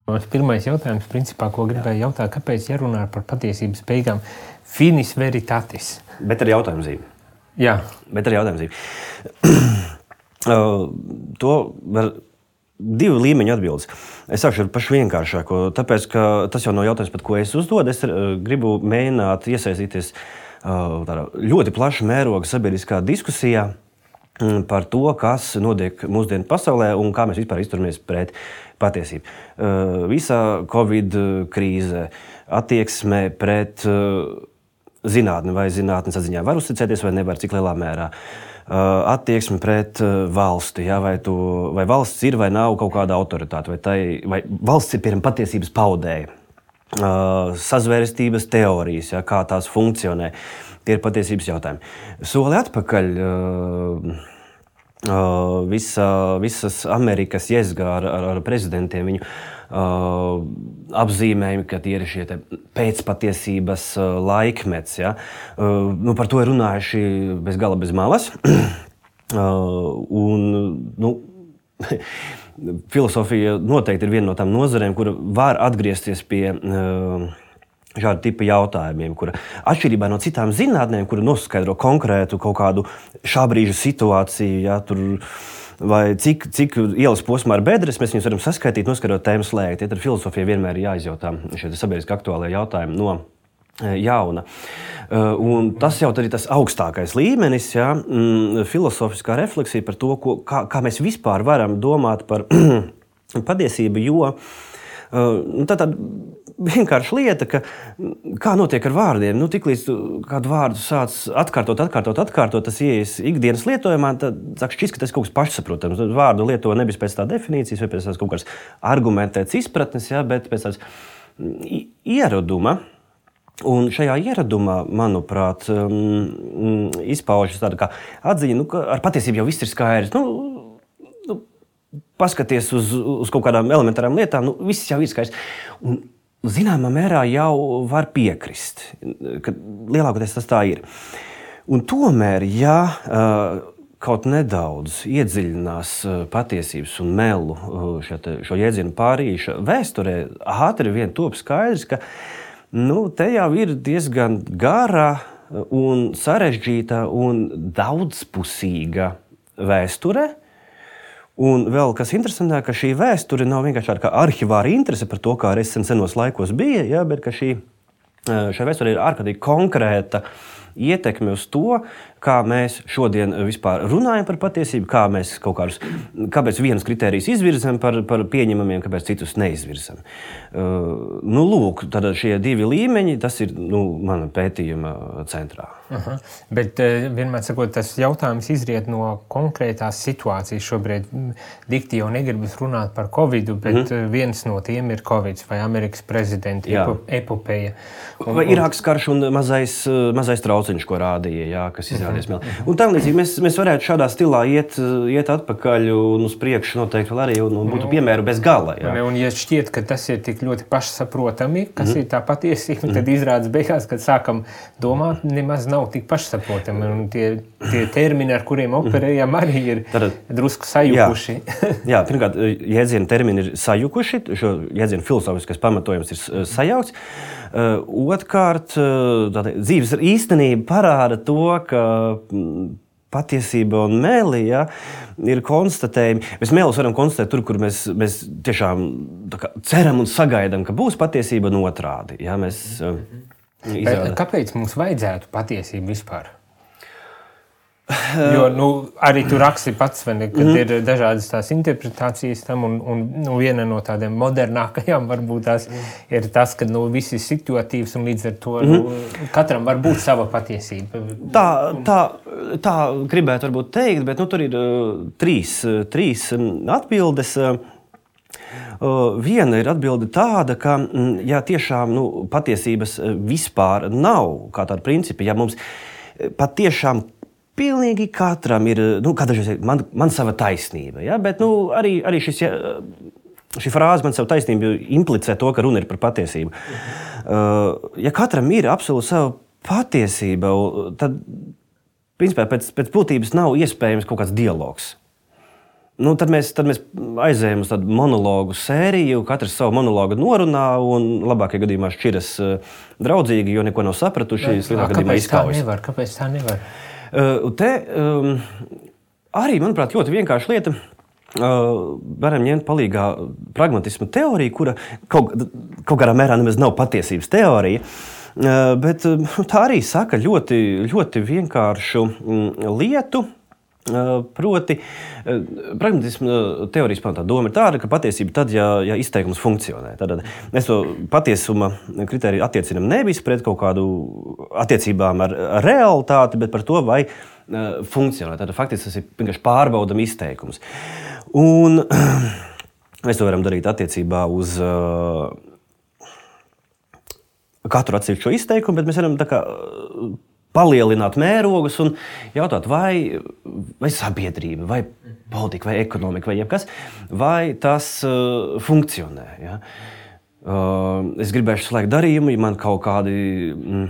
Mans pirmais jautājums, principā, ko gribēju jautāt, kāpēc jārunā par patiesības beigām? Finis veritatis. Bet ar jautājumu zīmi. Jā. Bet ar jautājumu zīmi. To var divu līmeņu atbildes. Es sākšu ar pašu vienkāršāko, tāpēc, ka tas jau nav jautājums, pat ko es uzdodu. Es gribu mēģināt iesaistīties tādā ļoti plaša mēroga sabiedriskā diskusijā par to, kas notiek mūsdienu pasaulē un kā mēs vispār izturamies pret patiesību. Visā Covid krīze, attieksme pret zinātni vai zinātnes atziņā var uzticēties vai nevar, cik lielā mērā. Attieksme pret valsti, ja, vai valsts ir vai nav kaut kāda autoritāte, vai valsts ir piemēram patiesības paudēja. Sazvērestības teorijas, ja, kā tās funkcionē, tie ir patiesības jautājumi. Soli atpakaļ visas Amerikas jezgā ar prezidentiem, viņu apzīmējumi, ka tie ir šie pēcpatiesības laikmets. Ja. Par to ir runājuši bez gala bez malas. Filosofija noteikti ir viena no tām nozarēm, kura var atgriezties pie šāda tipa jautājumiem, kura atšķirībā no citām zinātnēm, kura noskaidro konkrētu kaut kādu šā brīža situāciju, ja, vai cik ielas posmā ar bedres, mēs viņus varam saskaitīt, noskaidrot tēmu slēgt. Ja, tad filosofija vienmēr ir jāizjautā šie sabiedriski aktuālie jautājumi no jauna. Un tas jau ir tas augstākais līmenis, ja, filosofiskā refleksija par to, kā mēs vispār varam domāt par patiesību, jo tā vienkārši lieta, ka kā notiek ar vārdiem, tiklīdz kādu vārdu sāc atkārtot, tas ieies ikdienas lietojumā, tad sāk šķist, ka tas kaut kas pašsaprotams. Vārdu lieto nevis pēc tā definīcijas vai pēc tās kaut kādas argumentētas izpratnes, ja, bet pēc tās ieraduma. Un šajā ieradumā, manuprāt, izpaužas tāda kā atziņa, ka ar patiesību jau viss ir skaidrs. Paskaties uz kaut kādām elementārām lietām, viss jau ir skaidrs. Un zināmā mērā jau var piekrist, ka lielākoties tas tā ir. Un tomēr, ja kaut nedaudz iedziļinās patiesības un melu šo jēdzienu pārīša vēsturē, ātri vien top skaidrs, ka te jau ir diezgan gara un sarežģīta un daudzpusīga vēsture. Un vēl kas interesantāk, ka šī vēsture nav vienkārši tāda kā arhivāra interese par to, kā arī senos laikos bija, ja, bet ka šai vēsture ir ārkārtīgi konkrēta ietekme uz to, kā mēs šodien vispār runājam par patiesību, kāpēc vienus kritērijus izvirzam par pieņemamiem, kāpēc citus neizvirzam. Lūk, tad šie divi līmeņi, tas ir mana pētījuma centrā. Aha. Bet vienmēr sakot, tas jautājums izriet no konkrētās situācijas. Šobrīd dikti jau negribas runāt par Covidu, bet viens no tiem ir Covids vai Amerikas prezidenta epopeja. Vai Irākas karš un mazais trauciņš, ko rādīja, jā, kas izrādījās meli. Un tā līdzīgi mēs varētu šādā stilā iet atpakaļ un uz priekšu noteikti vēl arī un būtu piemēru bez gala. Jā. Un ja šķiet, ka tas ir tik ļoti pašsaprotami, kas ir tā patiesība, tad izrādās beigās, kad sākam domāt, nemaz nav tik pašsaprotami. Un tie termini, ar kuriem operējam, arī ir drusku sajukuši. Jā, pirmkārt, jēdzienu termini ir sajukuši, šo jēdzienu filozofiskais pamatojums ir sajaukts. Otrkārt, dzīves īstenība parāda to, ka patiesība un meli, ja, ir konstatējumi. Mēs melus varam konstatēt tur, kur mēs tiešām ceram un sagaidām, ka būs patiesība un otrādi. Ja, kāpēc mums vajadzētu patiesību vispār? Jo arī tu raksti pats, kad ir dažādas tās interpretācijas tam, un viena no tādiem modernākajām varbūt tās ir tas, ka viss ir situatīvs un līdz ar to katram var būt sava patiesība. Tā gribētu varbūt teikt, bet tur ir trīs atbildes. Viena ir atbilde tāda, ka ja tiešām patiesības vispār nav kā tāda principa, ja mums patiešām pilnīgi katram ir, man sava taisnība, ja? Bet arī šī frāze man sava taisnība implicē to, ka runa ir par patiesību. Ja katram ir absolūti sava patiesība, tad principā pēc būtības nav iespējams kaut kāds dialogs. Nu, tad mēs aizējām uz tādu monologu sēriju, katrs savu monologu norunā un labākajā gadījumā šķiras draudzīgi, jo neko nav sapratuši. Kāpēc tā nevar? Te arī, manuprāt, ļoti vienkārša lieta. Varam ņemt palīgā pragmatisma teoriju, kura kaut kādā mērā nemaz nav patiesības teorija, bet tā arī saka ļoti, ļoti vienkāršu lietu. Proti, pragmatisma teorijas pamatā doma ir tāda, ka patiesība tad, ja izteikums funkcionē. Tad mēs to patiesuma kritēriju attiecinam nevis pret kaut kādu attiecībām ar realitāti, bet par to, vai funkcionē. Tad faktiski tas ir vienkārši pārbaudam izteikums. Un mēs to varam darīt attiecībā uz katru atsevišķo izteikumu, bet mēs varam tā kā palielināt mērogus un jautāt, vai sabiedrība, vai politika, vai ekonomika, vai jebkas, vai tas funkcionē. Ja? Es gribēšu slēgt darījumu, ja man kaut kādi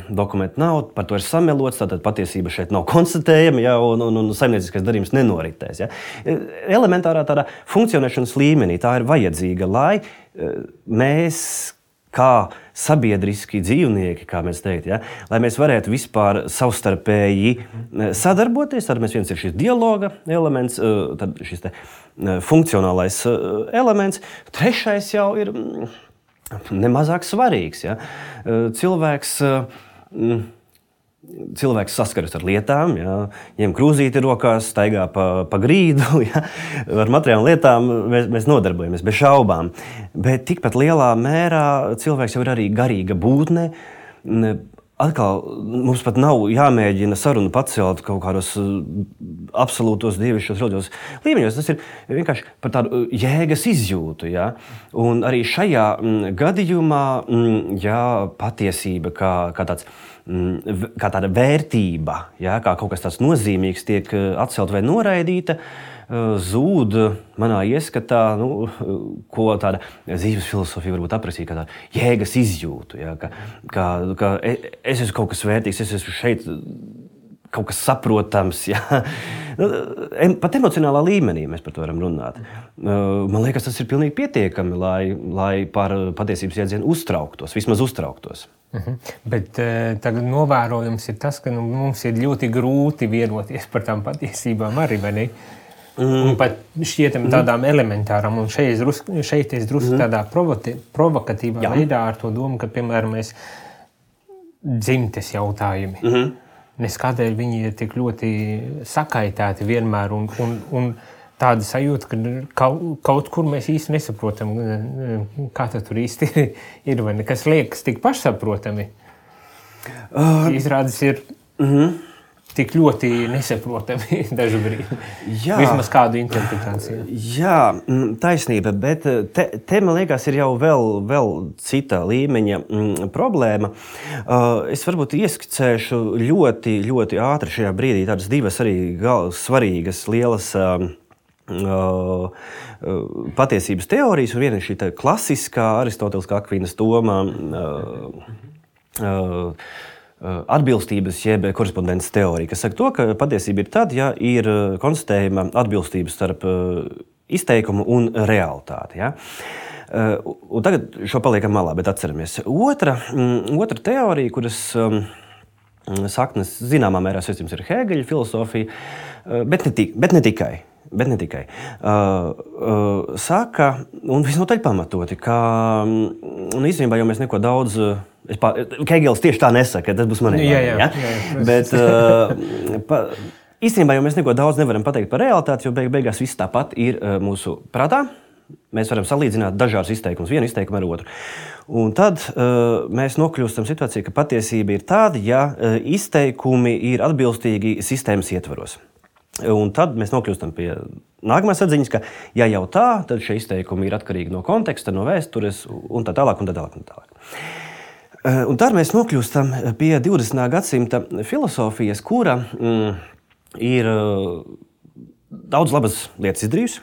dokumenti nav, par to ir samelots, tātad patiesība šeit nav konstatējama, ja, un saimnieciskais darījums nenoritēs. Ja. Elementārā tādā funkcionēšanas līmenī tā ir vajadzīga, lai mēs kā sabiedriski dzīvnieki, kā mēs teikt, ja, lai mēs varētu vispār savstarpēji sadarboties, tad mēs viens ir šis dialoga elements, tad šis te funkcionālais elements, trešais jau ir nemazāk svarīgs. Ja. Cilvēks saskaras ar lietām, ja, ņem krūzīti rokās, staigā pa grīdu, ja, ar materiālām lietām mēs nodarbojamies bez šaubām. Bet tikpat lielā mērā cilvēks jau ir arī garīga būtne. Atkal mums pat nav jāmēģina sarunu pacelt kaut kādos absolūtos dievišķos reliģios līmeņos. Tas ir vienkārši par tādu jēgas izjūtu. Ja? Un arī šajā gadījumā patiesība kā tāda vērtība, ja? Kā kaut kas tāds nozīmīgs tiek atcelt vai noraidīta, zūd manā ieskatā, ko tāda dzīves filosofija varbūt aprakstīja, kā tāda jēgas izjūtu. Ja? Ka es esmu kaut kas vērtīgs, es esmu šeit kaut kas saprotams. Ja? Pat emocionālā līmenī mēs par to varam runāt. Man liekas, tas ir pilnīgi pietiekami, lai par patiesības jēdzienu vismaz uztrauktos. Bet tagad novērojums ir tas, ka mums ir ļoti grūti vienoties par tām patiesībām arī, vai ne? Un pat šķietam tādām elementārām, un šeit es drusku tādā provokatīvā veidā ar to domu, ka, piemēram, mēs dzimtes jautājumi, nes kādēļ viņi ir tik ļoti sakaitēti vienmēr, un tāda sajūta, ka kaut kur mēs īsti nesaprotam, kā tur īsti ir, vai ne, kas liekas tik pašsaprotami. Izrādes ir tik ļoti nesaprotami dažbrīd. Vismaz kādu interpretāciju. Jā, taisnība, bet te man liekas, ir jau vēl cita līmeņa problēma. Es varbūt ieskicēšu ļoti, ļoti ātri šajā brīdī tādas divas arī svarīgas, lielas patiesības teorijas, un viena ir šī klasiskā Aristoteliskā Akvīnas doma, atbilstības jeb korespondences teorija, kas saka to, ka patiesība ir tad, ja ir konstatējama atbilstība starp izteikumu un realitāti. Ja? Un tagad šo paliekam malā, bet atceramies. Otra teorija, kuras saknes zināmā mērā saistības ir Hēgeļa filosofija, bet ne tikai. Saka, un visnotaļ pamatoti, ka īstenībā jau mēs neko daudz. Hēgelis tieši tā nesaka, tas būs manī. Jā, bet īstenībā jau mēs neko daudz nevaram pateikt par realitāti, jo beigās viss tāpat ir mūsu prātā. Mēs varam salīdzināt dažādus izteikumus, vienu izteikumu ar otru. Un tad mēs nokļūstam situācijā, ka patiesība ir tāda, ja izteikumi ir atbilstīgi sistēmas ietvaros. Un tad mēs nokļūstam pie nākamās atziņas, ka ja jau tā, tad šie izteikumi ir atkarīgi no konteksta, no vēstures un tā tālāk. Un tad mēs nokļūstam pie 20. gadsimta filosofijas, kura ir daudz labas lietas izdarījusi.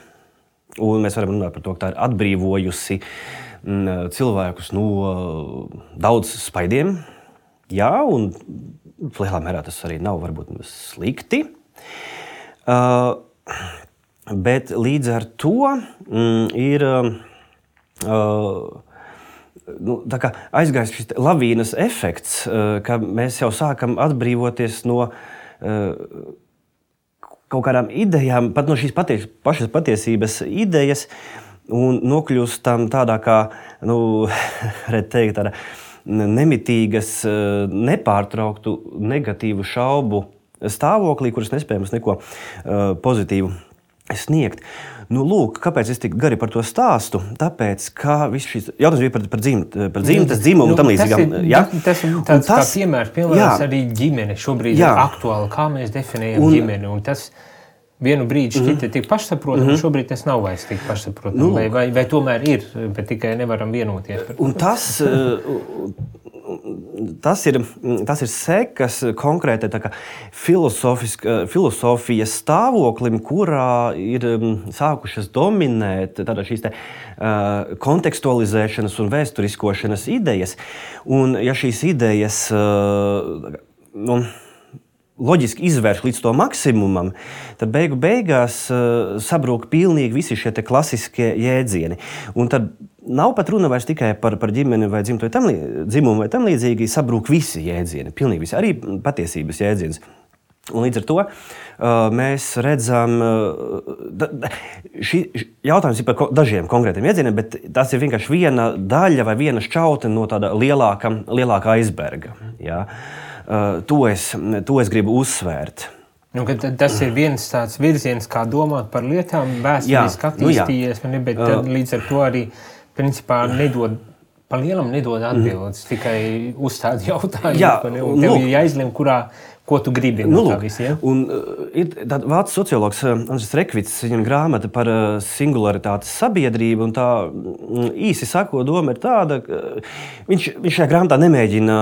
Un mēs varam runāt par to, ka tā ir atbrīvojusi cilvēkus no daudz spaidiem. Jā, un lielā mērā tas arī nav varbūt slikti. Bet līdz ar to ir tā kā aizgājis šis lavīnas efekts, ka mēs jau sākam atbrīvoties no kaut kādām idejām, pat no šīs pašas patiesības idejas, un nokļūstam tādā kā, tāda nemitīgas, nepārtrauktu negatīvu šaubu stāvoklī, kuras nespējams neko pozitīvu sniegt. Lūk, kāpēc es tik gari par to stāstu? Tāpēc, ka viss šis jautājums bija par dzimtes, dzimumu un tam līdzīgām. Tas ir tāds kā piemērs arī ģimene šobrīd ir aktuāli, kā mēs definējam ģimeni. Un tas vienu brīdi šķita tik pašsaprotam, un šobrīd tas nav vairs tik pašsaprotam. Vai tomēr ir, bet tikai nevaram vienoties. Un tas ir sekas konkrētai filosofijas stāvoklim, kurā ir sākušas dominēt šīs kontekstualizēšanas un vēsturiskošanas idejas. Un ja šīs idejas loģiski izvērš līdz to maksimumam, tad beigās sabrūk pilnīgi visi šie klasiskie jēdzieni. Un tad nav pat runa vairs tikai par ģimeni vai dzimumu vai tam līdzīgi, sabrūk visi jēdzieni, pilnīgi visi, arī patiesības jēdziens. Un līdz ar to mēs redzam, šī jautājums ir par dažiem konkrētiem jēdzieniem, bet tas ir vienkārši viena daļa vai viena šķautne no tāda lielāka aizberga. Ja? To es gribu uzsvērt. Tas ir viens tāds virziens, kā domāt par lietām, vēsturiski attīstījies, bet līdz ar to arī principā pa lielam nedod atbildes, tikai uzstāda jautājumu. Tev ir jāizlem, ko tu gribi no tā visi. Ja? Un ir tāds vācu sociologs Andris Rekvits, viņam grāmata par singularitātes sabiedrību, un tā īsi sakot, doma ir tāda, ka viņš šajā grāmatā nemēģina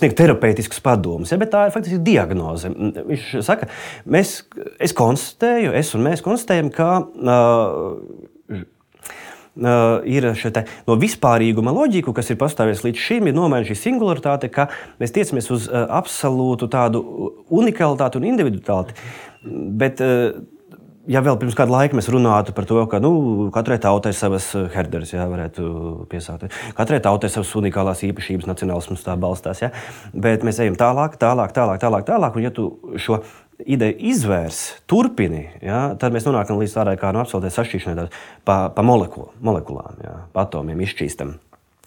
sniegt terapeitiskus padomus, bet tā ir faktiski diagnoze. Viņš saka, es un mēs konstatējam, ka ir no vispārīguma loģiku, kas ir pastāvējusi līdz šim, ir nomaina šī singularitāte, ka mēs tiecamies uz absolūtu tādu unikalitāti un individualitāti. Bet, ja vēl pirms kāda laika mēs runātu par to, ka katrai tautai ir savas herderes, varētu piesaukt. Katrai tautai ir savas unikālās īpašības, nacionālisms tā balstās. Ja? Bet mēs ejam tālāk, un ja tu šo ideju izvērs, turpini, tad mēs nonākam līdz tādai kā absolūtai sašķīšanai pa molekulām, pa atomiem izšķīstam.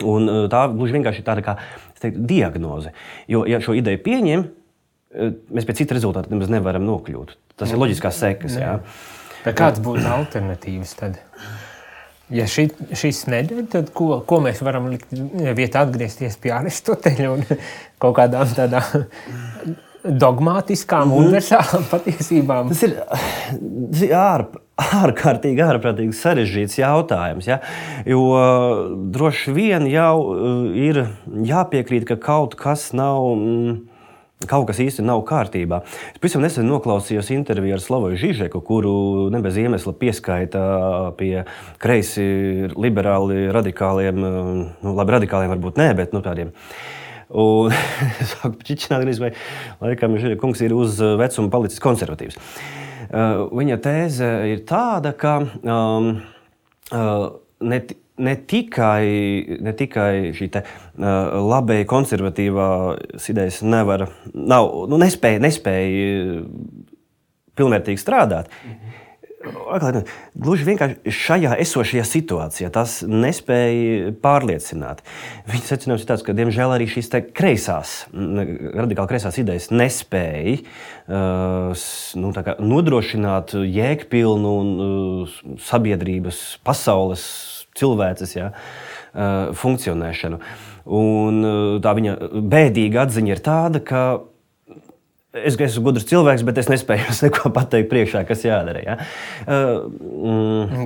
Un tā gluži vienkārši ir tāda kā diagnoze. Jo, ja šo ideju pieņem, mēs pēc cita rezultāta nemaz nevaram nokļūt. Tas ir loģiskās sekas. Bet kāds būtu alternatīvas tad? Ja šis neder, tad ko mēs varam likt vietā atgriezties pie Aristoteļa un kaut kādām tādām dogmātiskām, universālām patiesībām? Tas ir ārkārtīgi sarežģīts jautājums. Ja? Jo droši vien jau ir jāpiekrīt, ka kaut kas īsti nav kārtībā. Es pavisam nesen noklausījos interviju ar Slavoju Žižeku, kuru ne bez iemesla pieskaita pie kreisi liberāli radikāliem, labi radikāliem varbūt nē, bet tādiem. Un es sāku čičināt, vai laikam kungs ir uz vecumu palicis konservatīvs. Viņa tēze ir tāda, ka ne tikai šī labēji konservatīvās idejas nespēja pilnvērtīgi strādāt. Gluži vienkārši šajā esošajā situācijā tas nespēja pārliecināt. Viņa secinājums ir tāds, ka diemžēl arī šīs radikāli kreisās idejas nespēja nodrošināt jēgpilnu sabiedrības, pasaules, cilvēces funkcionēšanu. Un tā viņa bēdīga atziņa ir tāda, ka es esmu gudrs cilvēks, bet es nespēju neko pateikt priekšā, kas jādara. Ja?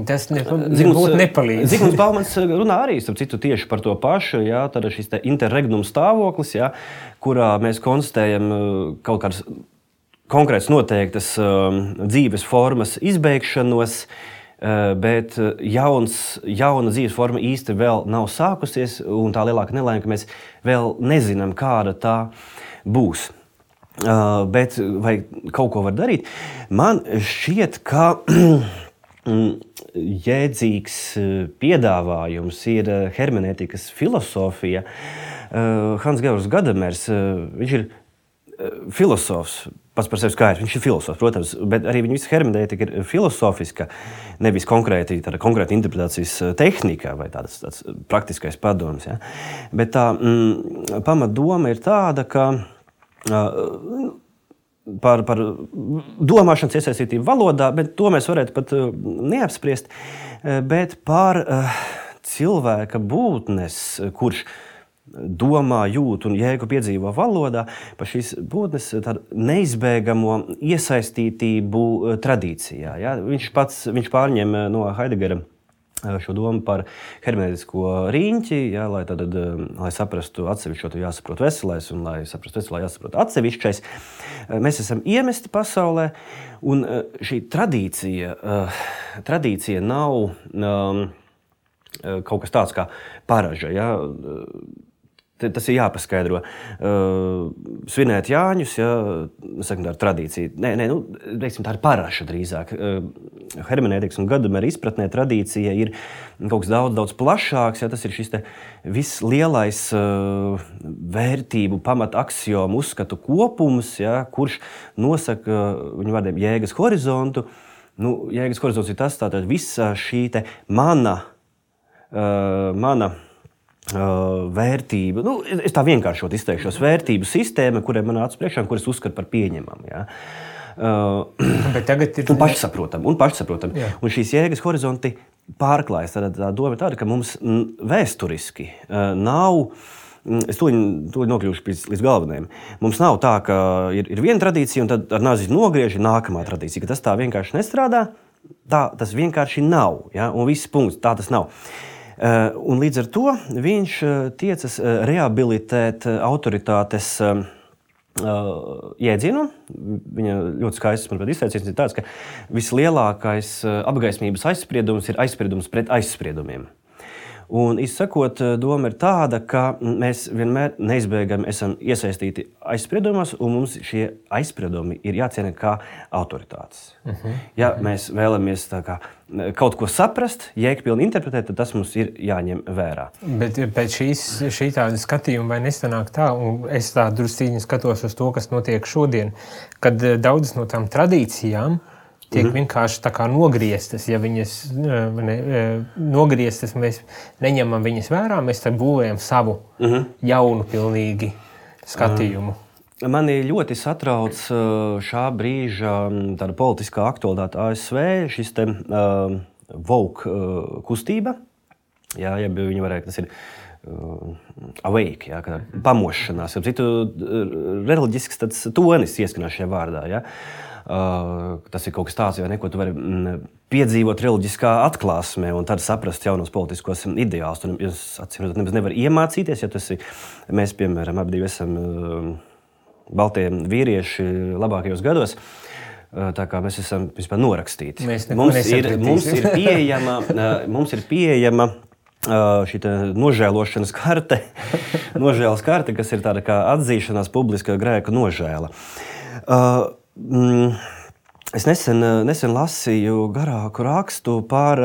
Tas nebūtu nepalīdz. Zigmunds Baumans runā arī tieši par to pašu. Ja? Tad šis interregnum stāvoklis, ja? Kurā mēs konstatējam kaut kādas konkrētas noteiktas dzīves formas izbeigšanos, bet jauna dzīves forma īsti vēl nav sākusies, un tā lielāka nelaime, ka mēs vēl nezinām, kāda tā būs. bet vai kaut ko var darīt? Man šķiet, ka jēdzīgs piedāvājums ir hermenētikas filosofija. Hans-Georgs Gadamers, viņš ir filosofs, pats par sevi skaidrs, viņš ir filosofs, protams, bet arī viņa visa hermenētika ir filosofiska, nevis konkrēti interpretācijas tehnika vai tāds praktiskais padoms. Ja? Bet tā pamatdoma ir tāda, ka par domāšanas iesaistītību valodā, bet to mēs varētu pat neapspriest, bet par cilvēka būtnes, kurš domā, jūt un jēgu piedzīvo valodā, par šīs būtnes tādu neizbēgamo iesaistītību tradīcijā. Ja? Viņš pārņem no Heideggera šo domu par hermenētisko riņķi, ja, lai saprastu atsevišķo, jāsaprot veselais, un lai saprastu veselā, jāsaprot atsevišķais. Mēs esam iemesti pasaulē, un šī tradīcija nav kaut kas tāds kā paraža. Ja? Tas ir jāpaskaidro. Svinēt Jāņus, ja, sakam, tā ir tradīcija. Tā ir paraša drīzāk. Hermenētikas un Gadamera izpratnē tradīcija ir kaut kas daudz plašāks. Ja, tas ir šis vislielais vērtību pamataksiomu uzskatu kopums, ja, kurš nosaka viņu vārdiem jēgas horizontu. Jēgas horizonts ir tas, tātad visa šī mana vērtība, es tā vienkāršot izteikšos, vērtību sistēma, kurai man nāca priekšā, kuras uzskatu par pieņemamu. Ja? Bet tagad ir... Un pašsaprotam. Jā. Un šīs jēgas horizonti pārklājas. Tā doma ir tāda, ka mums vēsturiski nav, es to nokļūšu līdz galvenajam, mums nav tā, ka ir viena tradīcija un tad ar nāzi nogriež nākamā tradīcija, ka tas tā vienkārši nestrādā, tas vienkārši nav, ja? Un viss punkts, tā tas nav. Un līdz ar to viņš tiecas rehabilitēt autoritātes jēdzienu. Viņa ļoti skaists, manuprāt, izteiciens ir tāds, ka vislielākais apgaismības aizspriedums ir aizspriedums pret aizspriedumiem. Un, izsakot, doma ir tāda, ka mēs vienmēr neizbēgami esam iesaistīti aizspriedumos, un mums šie aizspriedumi ir jāciena kā autoritātes. Ja mēs vēlamies kaut ko saprast, jēgpilni interpretēt, tad tas mums ir jāņem vērā. Bet pēc šī tāda skatījuma vai nesanāk tā, un es tā drusciņi skatos uz to, kas notiek šodien, kad daudzas no tām tradīcijām tiek vienkārši tā kā nogrieztas. Ja viņas nogrieztas, mēs neņemam viņas vērā, mēs tad būvējam savu jaunu pilnīgi skatījumu. Mani ļoti satrauc šā brīža tāda politiskā aktualitāte ASV, šis te woke kustība. Jā, ja viņi varētu, tas ir awake, ja, pamošanās. Citu reliģisks tāds tonis ieskanās šajā vārdā, ja. Tas ir kaut kas tāds, vai ne, ko tu vari piedzīvot reliģiskā atklāsmē un tad saprast jaunos politiskos ideālus. Tu nemaz nevar iemācīties, ja mēs, piemēram, abi esam baltie vīrieši labākajos gados. Tā kā mēs esam vispār norakstīti. Mums ir pieejama šī nožēlošanas karte, nožēlas karte, kas ir tāda kā atzīšanās publiska grēka nožēla. Es nesen lasīju garāku rakstu par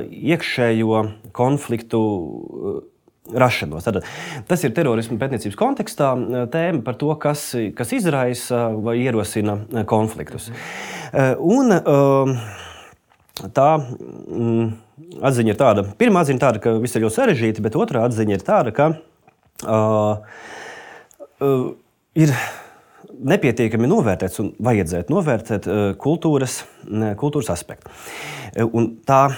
iekšējo konfliktu rašanos. Tātad, tas ir terorismu pētniecības kontekstā tēma par to, kas izraisa vai ierosina konfliktus. Un tā atziņa ir tāda, pirmā atziņa ir tāda, ka viss ir ļoti sarežģīti, bet otrā atziņa ir tāda, ka ir nepietiekami novērtēts un vajadzētu novērtēt kultūras aspektu. Un tālāk,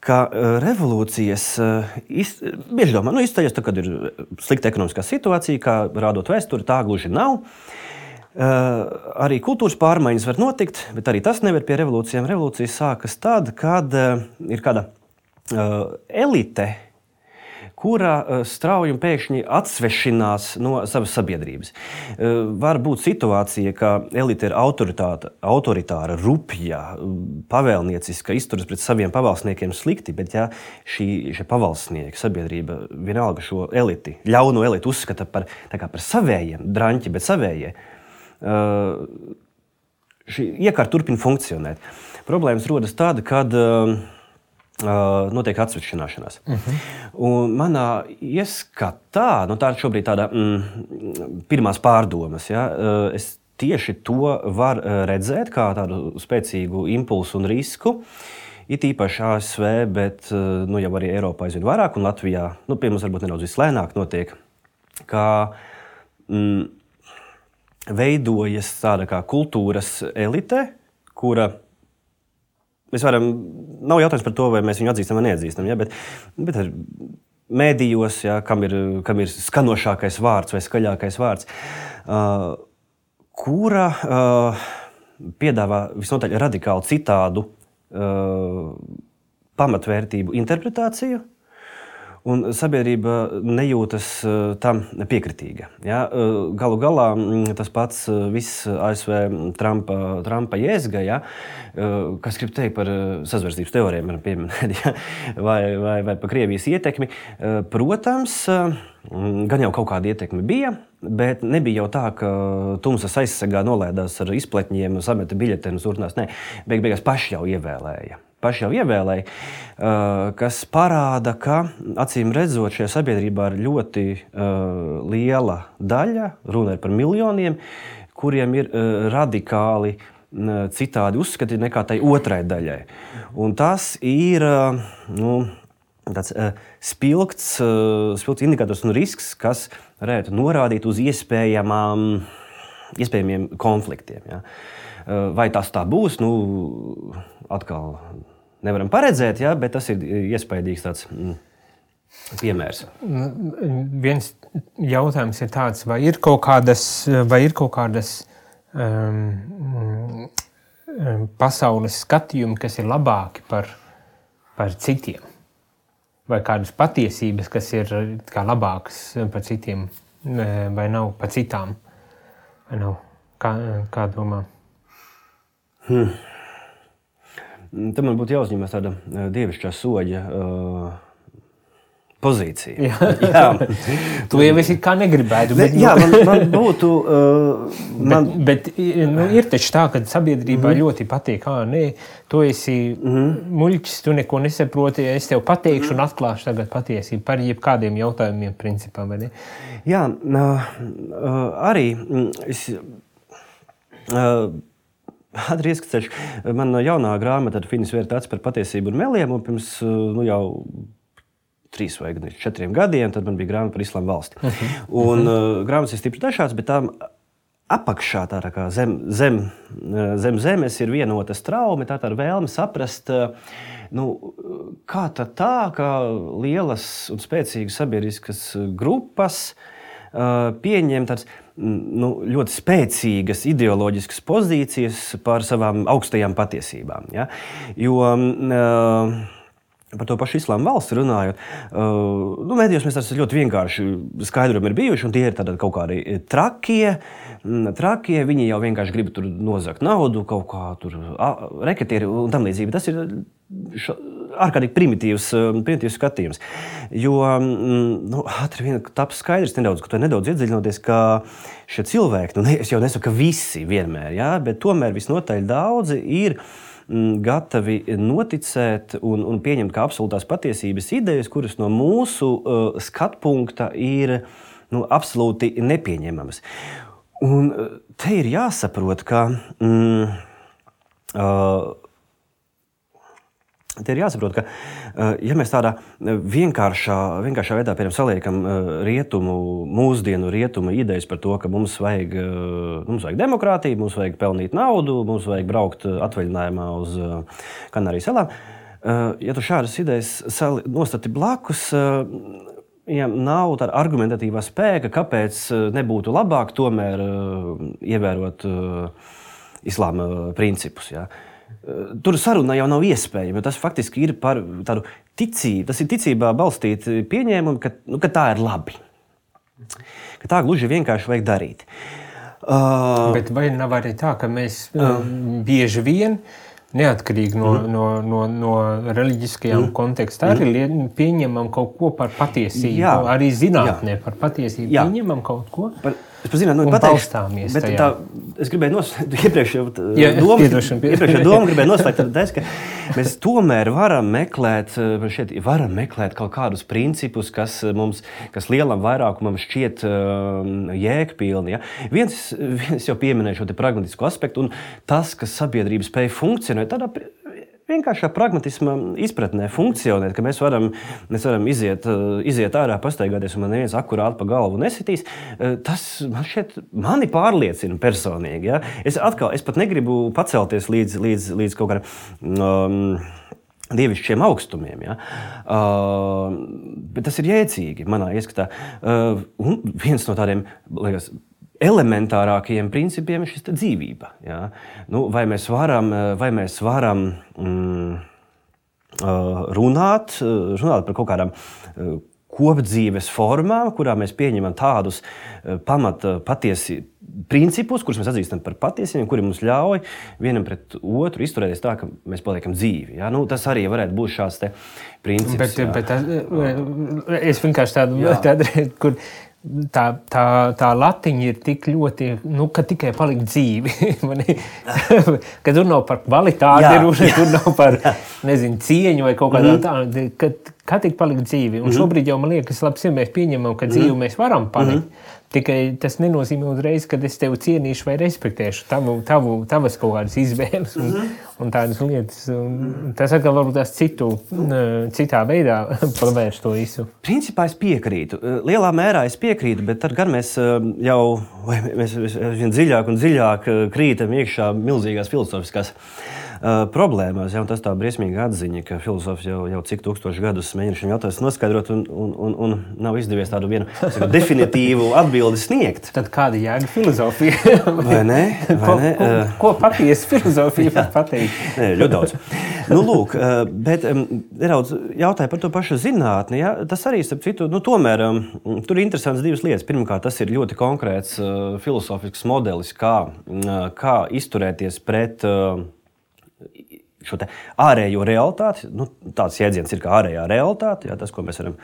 ka revolūcijas bieži domā, izceļas, kad ir slikta ekonomiskā situācija, kā rādot vēsturi, tā gluži nav. Arī kultūras pārmaiņas var notikt, bet arī tas nevar pie revolūcijām. Revolūcijas sākas tad, kad ir kāda elite, kura strauji un pēkšņi atsvešinās no savas sabiedrības. Var būt situācija, ka elite ir autoritāra, rupja, pavēlnieciska, izturas pret saviem pavalsniekiem slikti, bet ja šie pavalsnieki, sabiedrība vienalga šo eliti, ļauno eliti uzskata par savējiem, draņķi, bet savējie, šī iekārta turpina funkcionēt. Problēmas rodas tāda, kad notiek atsvešināšanās. Un manā ieskatā, tā ir šobrīd tāda pirmās pārdomas, ja, es tieši to varu redzēt kā tādu spēcīgu impulsu un risku, it īpaši ASV, bet jau arī Eiropā aizvien vairāk, un Latvijā, pie mums varbūt nedaudz vislēnāk notiek, kā veidojas tāda kā kultūras elite, kura nav jautājums par to, vai mēs viņu atzīstam vai neatzīstam, ja, bet ar mēdījos, ja, kam ir skanošākais vārds vai skaļākais vārds, kura piedāvā visnotaļ radikāli citādu pamatvērtību interpretāciju, un sabiedrība nejūtas tam piekritīga. Ja? Galu galā tas pats viss ASV Trumpa jēzga, ja? Kas grib teikt par sazvērstības teorijām, pieminēt, ja? vai par Krievijas ietekmi. Protams, gan jau kaut kāda ietekme bija, bet nebija jau tā, ka tumsas aizsargā nolēdās ar izpletņiem, sameta biļetenus, turpinās. Nē, beigās paši jau ievēlēja, kas parāda, ka, acīm redzot, šajā sabiedrībā ir ļoti liela daļa, runa ir par miljoniem, kuriem ir radikāli citādi uzskati nekā tai otrai daļai. Un tas ir tāds spilgts indikators un risks, kas varētu norādīt uz iespējamiem konfliktiem. Ja. Vai tas tā būs, atkal nevaram paredzēt, ja, bet tas ir iespaidīgs tāds piemērs. Viens jautājums ir tāds, vai ir kaut kādas pasaules skatījumi, kas ir labāki par citiem? Vai kādas patiesības, kas ir kā labākas par citiem, vai nav par citām? Vai nav? Kā domā? Tam man būtu jāuzņemas tāda dievišķā soļa pozīcija. Jā. Tu jau esi kā negribētu. Bet, man būtu... Bet ir taču tā, ka sabiedrībā ļoti patīk, tu esi muļķis, tu neko nesaproti, es tev pateikšu un atklāšu tagad patiesību par jebkādiem jautājumiem principā, vai ne? Jā, arī es... Ātri ieskatceļš. Man jaunā grāmata Finis Vērta acis par patiesību un meliem, un pirms jau 3 vai 4 gadiem, tad man bija grāmata par Islāma valsti. Un grāmatas ir stipri dažādas, bet tām apakšā, tā kā zem zemes ir vienota straumi, tā ir vēlme saprast, kā tā, ka lielas un spēcīgas sabiedriskas grupas pieņem tāds ļoti spēcīgas ideoloģiskas pozīcijas par savām augstajām patiesībām. Ja? Jo par to pašu Islāma valsti runājot, mēdījos mēs tāds ļoti vienkārši skaidrojumi ir bijuši, un tie ir tādi kaut kādi trakie, viņi jau vienkārši grib tur nozagt naudu, kaut kā tur reketieri un tam līdzīgi. Tas ir ārkārtīgi primitīvs skatījums. Jo ātri vien taps skaidrs nedaudz, ka to nedaudz iedziļinoties, ka šie cilvēki, es jau nesaku, ka visi vienmēr, ja, bet tomēr visnotaļ daudzi ir gatavi noticēt un pieņemt kā absolūtās patiesības idejas, kuras no mūsu skatpunkta ir absolūti nepieņemamas. Un te ir jāsaprot, ka ja mēs tādā vienkāršā veidā saliekam mūsdienu rietumu idejas par to, ka mums vajag demokrātiju, mums vajag pelnīt naudu, mums vajag braukt atvaļinājumā uz Kanāriju salām, ja tu šādas idejas nostati blakus, ja nav tāda argumentatīvā spēka, kāpēc nebūtu labāk tomēr ievērot islāma principus, ja? tur saruna jau nav iespējama, jo tas faktiski ir par tādu ticību. Tas ir ticībā balstīti pieņēmumi, ka tā ir labi. Ka tā gluži vienkārši vajag darīt. Bet vai nav arī tā, ka mēs bieži vien, neatkarīgi no reliģiskajām kontekstā, arī pieņemam kaut ko par patiesību, arī zinātnē par patiesību pieņemam kaut ko? Es par zinātni balstāmies tajā. Es gribēju iepriekšējā domu gribēju noslēgt, ka mēs tomēr varam meklēt kaut kādus principus, kas lielam vairākumam šķiet jēgpilni. Ja? Viens jau pieminēja šo te pragmatisko aspektu, un tas, ka sabiedrība spēja funkcionēt tādā vienkāršā pragmatisma izpratnē funkcionēt, ka mēs varam iziet ārā, pastaigāties, un man neviens akurāti pa galvu nesitīs, tas mani pārliecina personīgi. Ja? Es pat negribu pacelties līdz kaut kādam dievišķiem augstumiem. Ja? Bet tas ir jēdzīgi manā ieskatā. Un viens no tādiem, liekas, elementārākajiem principiem ir šis dzīvība. Ja? Vai mēs varam runāt par kaut kādām kopdzīves formām, kurā mēs pieņemam tādus patiesi principus, kurus mēs atzīstam par patiesiem, kuri mums ļauj vienam pret otru izturēties tā, ka mēs paliekam dzīvi. Ja? Tas arī varētu būt šāds te princips. Bet es vienkārši tādu kur tā latiņa ir tik ļoti, ka tikai palikt dzīvi. Ka tur nav par kvalitāti runa, tur nav par, cieņu vai kaut kādā tādu, kā tik palikt dzīvi. Un šobrīd jau man liekas, labs, ja mēs pieņemam, ka dzīvi mēs varam palikt. Tikai tas nenozīmē uzreiz, ka es tevi cienīšu vai respektēšu tavas kaut kādas izvēles un tādas lietas. Un tas atkal varbūt tās citā veidā pavērš to visu. Principā es piekrītu. Lielā mērā es piekrītu, bet tad gan mēs mēs vien dziļāk un dziļāk krītam iekšā milzīgās filozofiskās problēmās. Ja, tas tā briesmīga atziņa, ka filozofs jau cik tūkstoši gadus mēģina šim jautājumu noskaidrot un nav izdevies tādu vienu definitīvu atbildi sniegt. Tad kāda jēga filozofija? Vai ne? Ko patiesa filozofija var pateikt? Nē, ļoti daudz. Lūk, bet nedaudz jautāja par to pašu zinātni. Ja? Tas arī, starp citu, tomēr tur ir interesants divas lietas. Pirmkārt, tas ir ļoti konkrēts filozofisks modelis, kā izturēties pret šo te ārējo realitāti. Tāds jēdziens ir kā ārējā realitāte, tas, ko mēs varam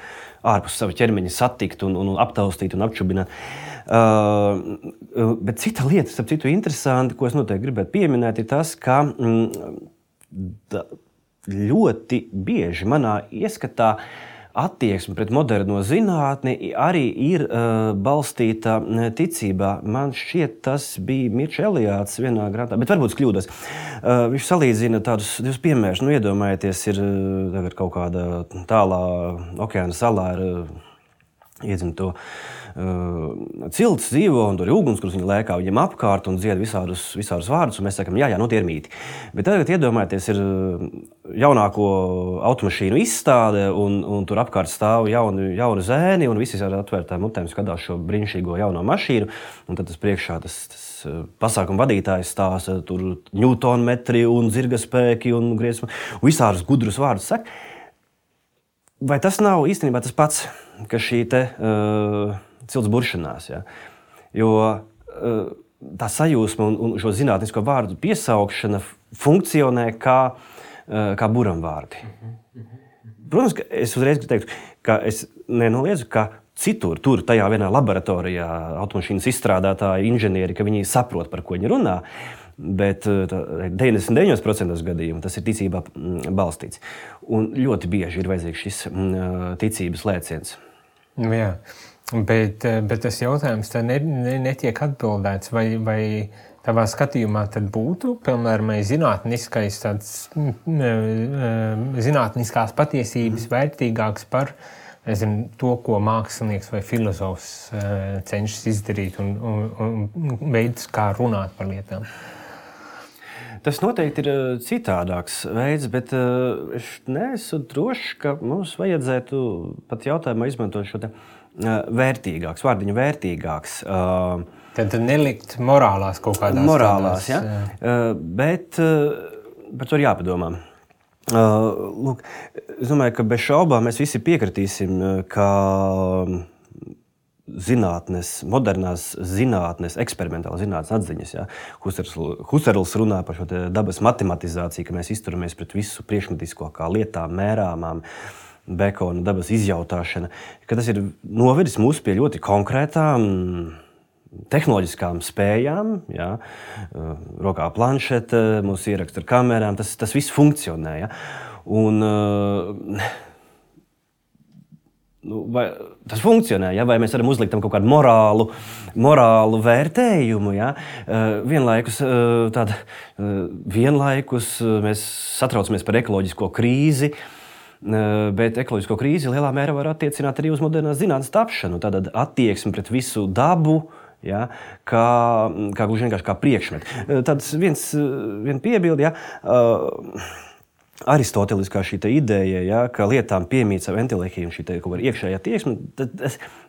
ārpus sava ķermeņa satikt un aptaustīt un apčubināt. Bet cita lieta, starp citu, interesanti, ko es noteikti gribētu pieminēt, ir tas, ka ļoti bieži manā ieskatā attieksme pret moderno zinātni arī ir balstīta ticībā. Man šķiet, tas bija Mirča Eliāts vienā grāmatā, bet varbūt es kļūdos. Viņš salīdzina tādus divus piemērus. Iedomājieties, ir tagad kaut kāda tālā okeāna salā ar iedzimto cilts dzīvo, un tur ir uguns, kurus viņi lēkā viņiem apkārt un dzied visādus vārdus, un mēs sakam, jā, tie ir mīti. Bet tagad iedomājieties, ir jaunāko automašīnu izstāde, un tur apkārt stāv jauni zēni, un visi ar atvērtām mutēm skatās šo brīnišķīgo jauno mašīnu, un tad tas priekšā tas pasākuma vadītājs stāsta tur ņūtonmetri un zirgaspēki un griezuma, un visādus gudrus vārdus saka. Vai tas nav īstenībā tas pats, ka šī te cilts buršanās? Ja? Jo tā sajūsma un šo zinātnisko vārdu piesaukšana funkcionē kā buramvārdi. Protams, ka es uzreiz teiktu, ka es nenoliedzu, ka citur, tajā vienā laboratorijā automašīnas izstrādātāji, inženieri, ka viņi saprot, par ko viņi runā, bet 99% gadījumu tas ir ticībā balstīts. Un ļoti bieži ir vajadzīgs šis ticības lēciens. Jā, bet tas jautājums tā netiek atbildēts, vai tavā skatījumā tad būtu, piemēram, zinātniskās patiesības vērtīgāks par to, ko mākslinieks vai filozofs cenšas izdarīt un veids, kā runāt par lietām. Tas noteikti ir citādāks veids, bet es neesmu drošs, ka mums vajadzētu pat jautājumā izmantot šo te vērtīgāks, vārdiņu vērtīgāks. Tad nelikt morālās kaut kādās morālās, tādās, ja? Bet par to ir jāpadomā. Lūk, es domāju, ka bez šaubām mēs visi piekritīsim, ka zinātnes, modernās zinātnes, eksperimentālās zinātnes atziņas. Ja? Husserls runā par šo dabas matematizāciju, ka mēs izturamies pret visu priekšmetisko kā lietām, mērāmām, Bekona dabas izjautāšana, ka tas ir novedis mūs pie ļoti konkrētām tehnoloģiskām spējām, ja? Rokā planšete, mūsu ieraksta ar kamerām, tas viss funkcionē. Ja? Un, vai tas funkcionē, ja? Vai mēs varam uzlikt tam kaut kādu morālu vērtējumu? Ja? Vienlaikus mēs satraucamies par ekoloģisko krīzi, bet ekoloģisko krīzi lielā mērā var attiecināt arī uz modernās zinātnes tapšanu. Tātad attieksmi pret visu dabu, ja, kā gluži vienkārši kā priekšmetu. Tāds viena piebilde, ja, aristoteliskā šī ideja, ja, ka lietām piemīt savu entelehiju un šī kaut kāda iekšējā tieksme,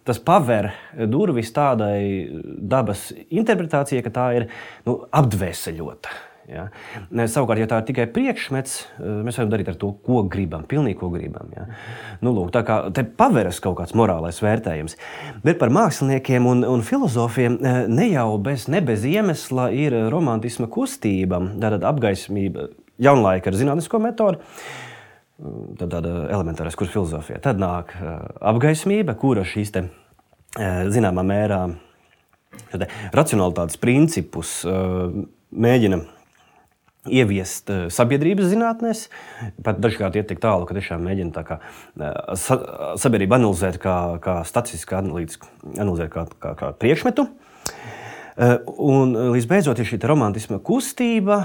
tas paver durvis tādai dabas interpretācijai, ka tā ir apdvēseļota. Ja. Savukārt, ja tā ir tikai priekšmets, mēs varam darīt ar to, ko gribam, pilnīgi ko gribam. Ja. Lūk, tā kā te paveras kaut kāds morālais vērtējums. Bet par māksliniekiem un filozofiem ne jau bez iemesla ir romantisma kustība, tātad apgaismība jaunlaika ar zinātnisko metodu, tad tāda elementārais kurs filozofijā. Tad nāk apgaismība, kura šīs te zināmā mērā racionalitātes principus mēģina ieviest sabiedrības zinātnēs, pat dažkārt iet tik tālu, ka tiešām mēģina tā kā sabiedrību analizēt kā statistiski analizēt kā priekšmetu. Un līdz beidzot ir šī romantisma kustība,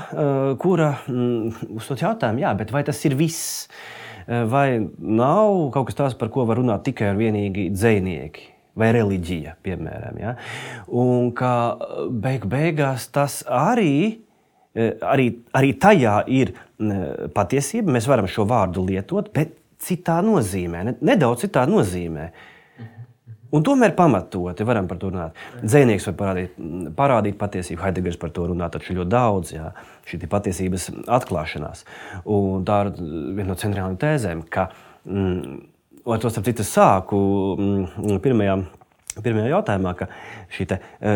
kura uzdod jautājumu, jā, bet vai tas ir viss? Vai nav kaut kas tāds, par ko var runāt tikai un vienīgi dzejnieki? Vai reliģija, piemēram. Ja? Un ka beigās tas arī tajā ir patiesība, mēs varam šo vārdu lietot, bet citā nozīmē, nedaudz citā nozīmē. Un tomēr pamatoti varam par to runāt. Dzejnieks var parādīt patiesību, Heidegers par to runā, taču ļoti daudz, jā, šī patiesības atklāšanās. Un tā ir viena no centrālajām tēzēm, ka, un to starp citu sāku pirmajā jautājumā, ka šī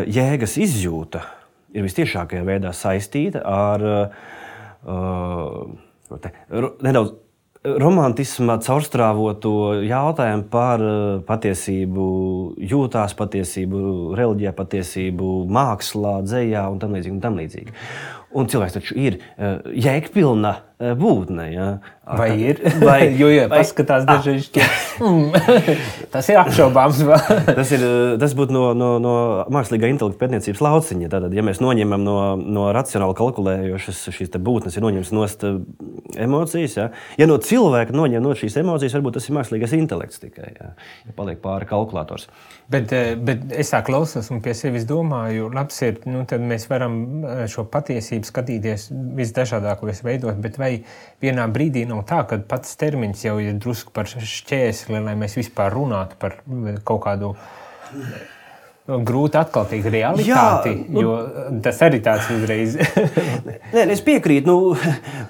jēgas izjūta ir vistiešākajā veidā saistīta ar nedaudz romantisma caurstrāvoto jautājumu par patiesību jūtās, patiesību reliģijā, patiesību mākslā, dzejā un tam līdzīgi. Un cilvēks taču ir jēgpilna būtne. Ja? Vai ir? Jo paskatās dažreiz, tas ir apšaubāms. Tas būtu no mākslīgā intelekta pētniecības lauciņa. Tātad, ja mēs noņemam no racionāli kalkulējošas šīs būtnes, ir noņemts nost emocijas. Ja no cilvēka noņem no šīs emocijas, varbūt tas ir mākslīgais intelekts tikai. Ja paliek pāri kalkulators. Bet es tā klausos un pie sevis domāju, labs ir, tad mēs varam šo patiesību skatīties visdažādākos veidos, bet vai vienā brīdī nav tā, ka pats termins jau ir drusku par šķēsli, lai mēs vispār runātu par kaut kādu grūti atkaltīgu realitāti, jo tas arī tāds uzreiz. Nē, es piekrītu,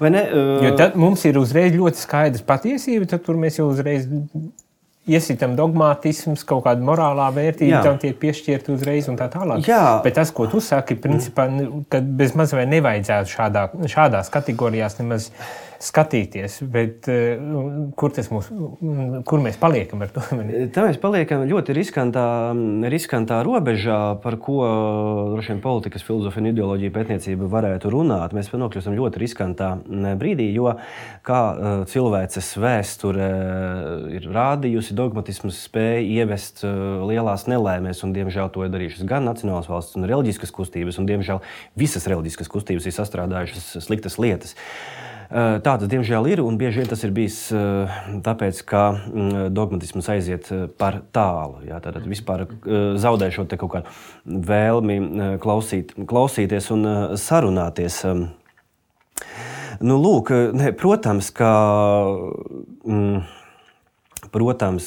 vai ne? Jo tad mums ir uzreiz ļoti skaidrs patiesība, tad tur mēs jau uzreiz iesitam dogmātisms, kaut kāda morālā vērtība, tam tiek piešķirta uzreiz un tā tālāk. Jā. Bet tas, ko tu saki, principā, ka bez maz vai nevajadzētu šādās kategorijās nemaz skatīties, bet kur mēs paliekam ar to? Tā mēs paliekam ļoti riskantā robežā, par ko droši vien politikas, filozofija un ideoloģija pētniecība varētu runāt. Mēs nokļūstam ļoti riskantā brīdī, jo kā cilvēces vēsture ir rādījusi, dogmatisms spēja ievest lielās nelēmēs, un diemžēl to ir darījušas gan nacionālas valsts un reliģiskas kustības, un diemžēl visas reliģiskas kustības ir sastrādājušas sliktas lietas. Tā tas diemžēl ir, un bieži vien tas ir bijis tāpēc, ka dogmatisms aiziet par tālu. Jā, tātad vispār zaudē šo te kaut kādu vēlmi klausīties un sarunāties. Lūk, protams,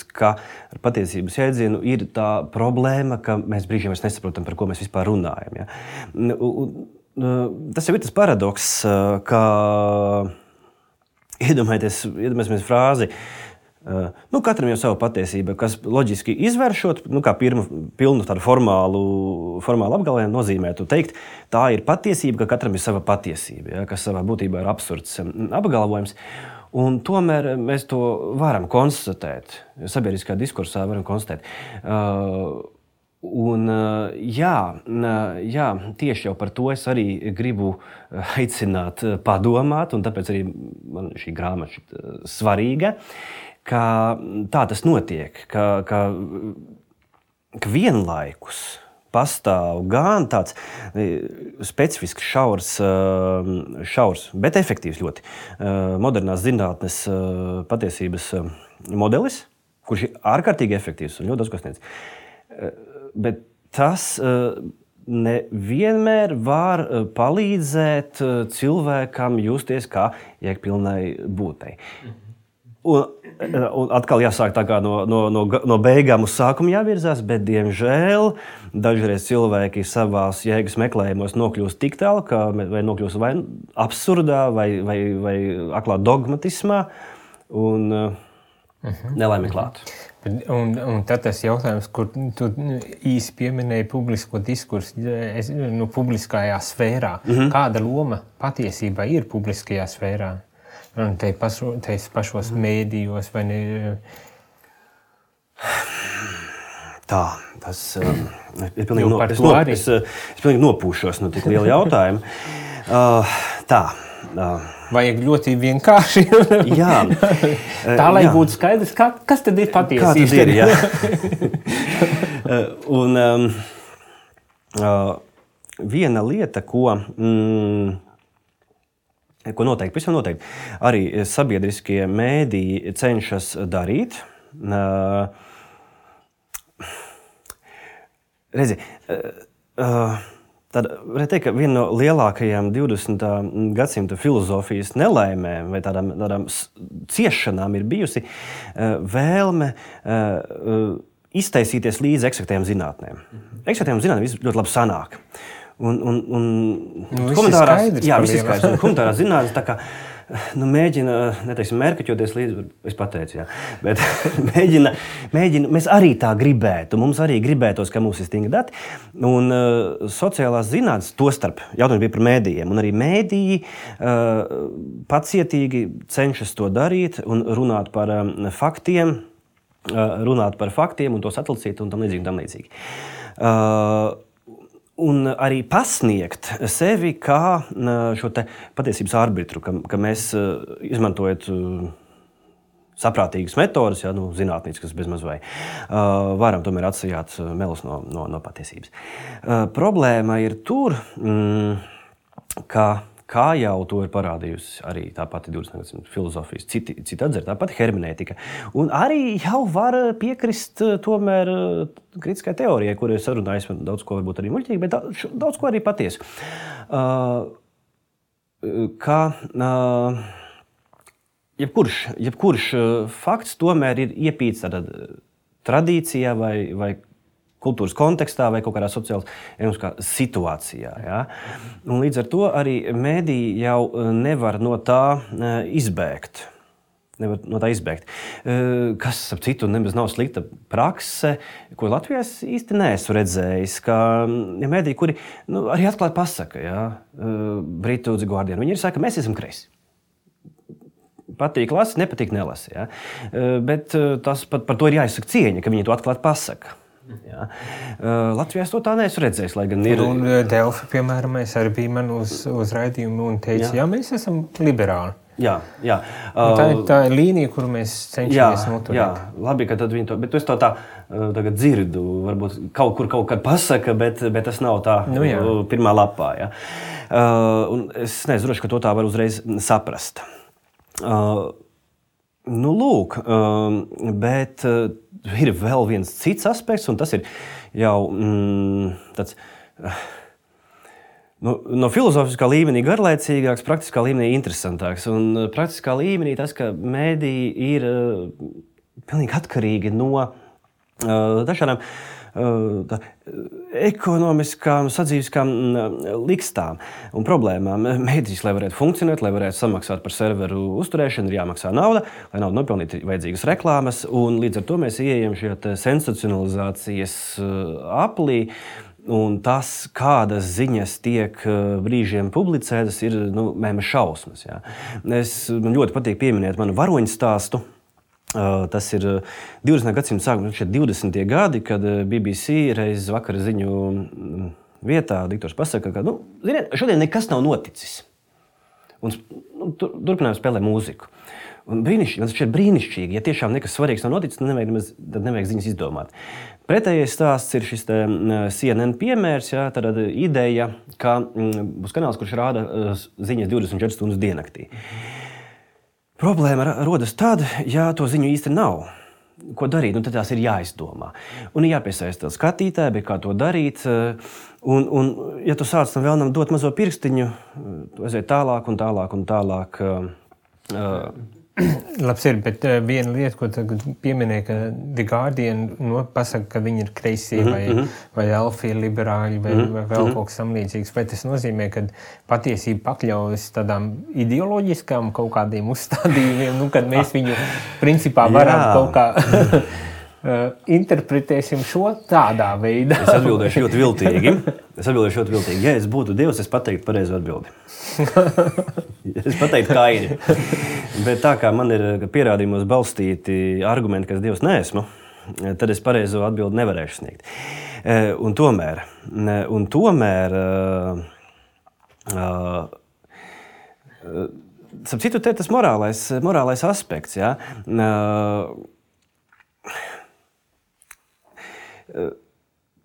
ka ar patiesības jēdzienu ir tā problēma, ka mēs brīžiem nesaprotam, par ko mēs vispār runājam. Ja? tas jau ir tas paradoks, ka iedomājieties frāzi, katram jau sava patiesība, kas loģiski izvēršot, kā pilnu tādu formālu apgalvojumu nozīmētu teikt, tā ir patiesība, ka katram ir sava patiesība, ja, kas savā būtībā ir absurds apgalvojums. Un tomēr mēs to varam konstatēt, sabiedriskā diskursā varam konstatēt. Jā, tieši jau par to es arī gribu aicināt padomāt, un tāpēc arī man šī grāmata svarīga, ka tā tas notiek, ka vienlaikus pastāv gan tāds specifisks šaurs, bet efektīvs ļoti modernās zinātnes patiesības modelis, kurš ir ārkārtīgi efektīvs un ļoti daudz ko sniedz. Bet tas nevienmēr var palīdzēt cilvēkam justies kā jēgpilnai būtei. Un atkal jāsāk tā kā no beigām uz sākumu jāvirzās, bet, diemžēl, dažreiz cilvēki savās jēgas meklējumos nokļūst tik tālu, vai nokļūst vai absurdā, vai aklā dogmatismā, un nelaimi klāt. Un tad tas jautājums, kur tu īsi pieminēji publisko diskursu, publiskajā sfērā. Kāda loma patiesībā ir publiskajā sfērā? Un te pašos mēdījos vai ne? Tā, tas ir pilnīgi es pilnīgi nopūšos no tik liela jautājuma. Tā. Vajag ļoti vienkārši. Jā. Tā, lai būtu skaidrs, kas tad ir patiesība. Kā tad ir, jā. Viena lieta, ko noteikti, pavisam noteikti, arī sabiedriskie mēdīji cenšas darīt. Redzi, tad varētu teikt, ka viena no lielākajām 20. gadsimta filozofijas nelaimēm vai tādām ciešanām ir bijusi vēlme iztaisīties līdz eksaktējām zinātnēm. Eksaktējām zinātnēm viss ļoti labi sanāk. Viss ir skaidrs. Humanitārā zinātnes tā kā mēģina, neteiksim, mērkaķoties līdz, es pateicu, jā, bet mēģina, mēs arī tā gribētu, mums arī gribētos, ka mums ir stingri dati, un sociālās zinātnes, tostarp, jautājums bija par mēdījiem, un arī mēdīji pacietīgi cenšas to darīt un runāt par faktiem, un tos atlicīt un tam līdzīgi. Un arī pasniegt sevi kā šo te patiesības arbitru, ka mēs izmantojot saprātīgas metodas, zinātniskas bezmaz vai, varam tomēr atsajāt melus no patiesības. Problēma ir tur, kā jau to ir parādījusi arī tā pati 20. gadsimta filozofijas, citi atzara, tā pati hermenētika. Un arī jau var piekrist tomēr kritiskai teorijai, kur ir sarunājis daudz ko varbūt arī muļķīgi, bet daudz ko arī patiesu. Jebkurš fakts tomēr ir iepīts tādā tradīcijā vai kultūras kontekstā vai kaut kādā sociālā situācijā. Ja? Un līdz ar to arī mēdīji jau nevar no tā izbēgt. Kas, ap citu, nemaz nav slikta prakse, ko Latvijā es īsti neesmu redzējis, ka mēdīji, kuri arī atklāti pasaka, ja? Britu The Guardian, viņi ir saka, mēs esam kreisi. Patīk lasi, nepatīk nelasi. Ja? Bet tas par to ir jāizsaka cieņa, ka viņi to atklāti pasaka. Jā. Latvijā es to tā neesmu redzējis, lai gan ir... Un Delfi, piemēram, mēs arī bijām uz raidījumu un teica, jā, mēs esam liberāli. Jā. Tā ir līnija, kuru mēs cenšamies noturēt. Jā, labi, ka tad viņi to... Bet es to tā tagad dzirdu, varbūt kaut kad pasaka, bet tas nav tā pirmā lapā. Ja? Un es nezinu, ka to tā var uzreiz saprast. Lūk, bet ir vēl viens cits aspekts, un tas ir jau tāds no filozofiskā līmenī garlaicīgāks, praktiskā līmenī interesantāks. Un praktiskā līmenī tas, ka mēdīji ir pilnīgi atkarīgi no dažādām ekonomiskām, sadzīviskām likstām un problēmām. Mēdīs, lai varētu funkcionēt, lai varētu samaksāt par serveru uzturēšanu, ir jāmaksā nauda, lai naudu nopelnītu vajadzīgas reklāmas, un līdz ar to mēs ieejam šajā sensacionalizācijas aplī. Un tas, kādas ziņas tiek brīžiem publicētas, ir mēma šausmas. Jā. Man ļoti patīk pieminēt manu varoņu stāstu. Tas ir 20. gadsimta sākums, 20. gadi, kad BBC reiz vakara ziņu vietā diktors pasaka, ka ziniet, šodien nekas nav noticis. Un turpinājām spēlēt mūziku. Un tas ir brīnišķīgi. Ja tiešām nekas svarīgs nav noticis, tad nevajag ziņas izdomāt. Pretējais stāsts ir šis CNN piemērs, jā, tad ideja, ka būs kanāls, kurš rāda ziņas 24 stundas diennaktī. Problēma rodas tad, ja to ziņu īsti nav. Ko darīt? Tad tās ir jāizdomā. Un ir jāpiesaista skatītāji, bet kā to darīt. Un ja tu sāc tam vēlnam dot mazo pirkstiņu, tu aiziet tālāk un tālāk un tālāk. Labs ir, bet viena lieta, ko tagad pieminēja, ka The Guardian pasaka, ka viņi ir kreisie vai alfie liberāļi vai vēl kaut kas samlīdzīgs. Vai tas nozīmē, ka patiesība pakļaujas tādām ideoloģiskām kaut kādiem uzstādījumiem, kad mēs viņu principā varam kaut kā interpretēsim šo tādā veidā? Es atbildēšu ļoti viltīgi. Ja es būtu Dievs, es pateiktu pareizo atbildi. Es pateiktu Kaini. Bet tā kā man ir pierādījumos balstīti argumenti, ka es Dievs neesmu, tad es pareizo atbildi nevarēšu sniegt. Un tomēr starp citu, te tas morālais aspekts, jā.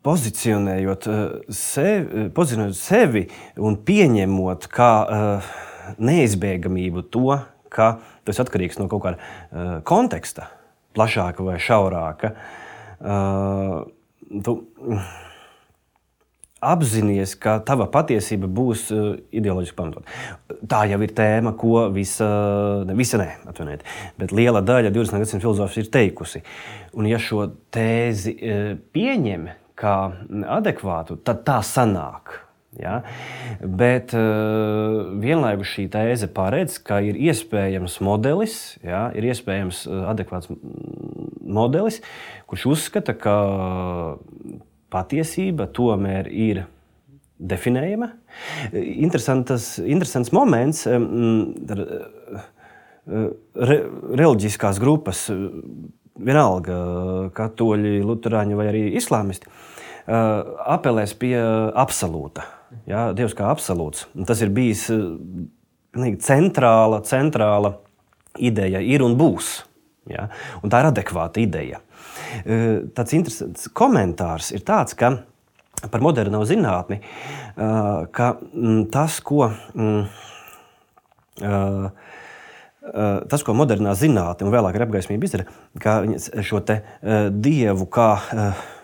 Pozicionējot sevi un pieņemot kā neizbēgamību to, ka tas atkarīgs no kaut kāda konteksta, plašāka vai šaurāka, tu apzinies, ka tava patiesība būs ideoloģiski pamatot. Tā jau ir tēma, ko bet liela daļa 20. gadsimta filozofijas ir teikusi. Un ja šo tēzi pieņem kā adekvātu, tad tā sanāk. Ja? Bet vienlaikus šī tēze paredz, ka ir iespējams modelis, ja? Ir iespējams adekvāts modelis, kurš uzskata, ka patiesība tomēr ir definējama. Interesants moments. Reliģiskās grupas, vienalga katoļi, luterāņi vai arī islāmisti, apelēs pie absolūta. Ja, Dievs kā absolūts. Tas ir bijis centrāla ideja ir un būs. Ja? Un tā ir adekvāta ideja. Tāds interesants komentārs ir tāds, ka par moderno zinātni, ka tas, ko modernā zinātne un vēlāk ir apgaismība izdara, ka šo te dievu kā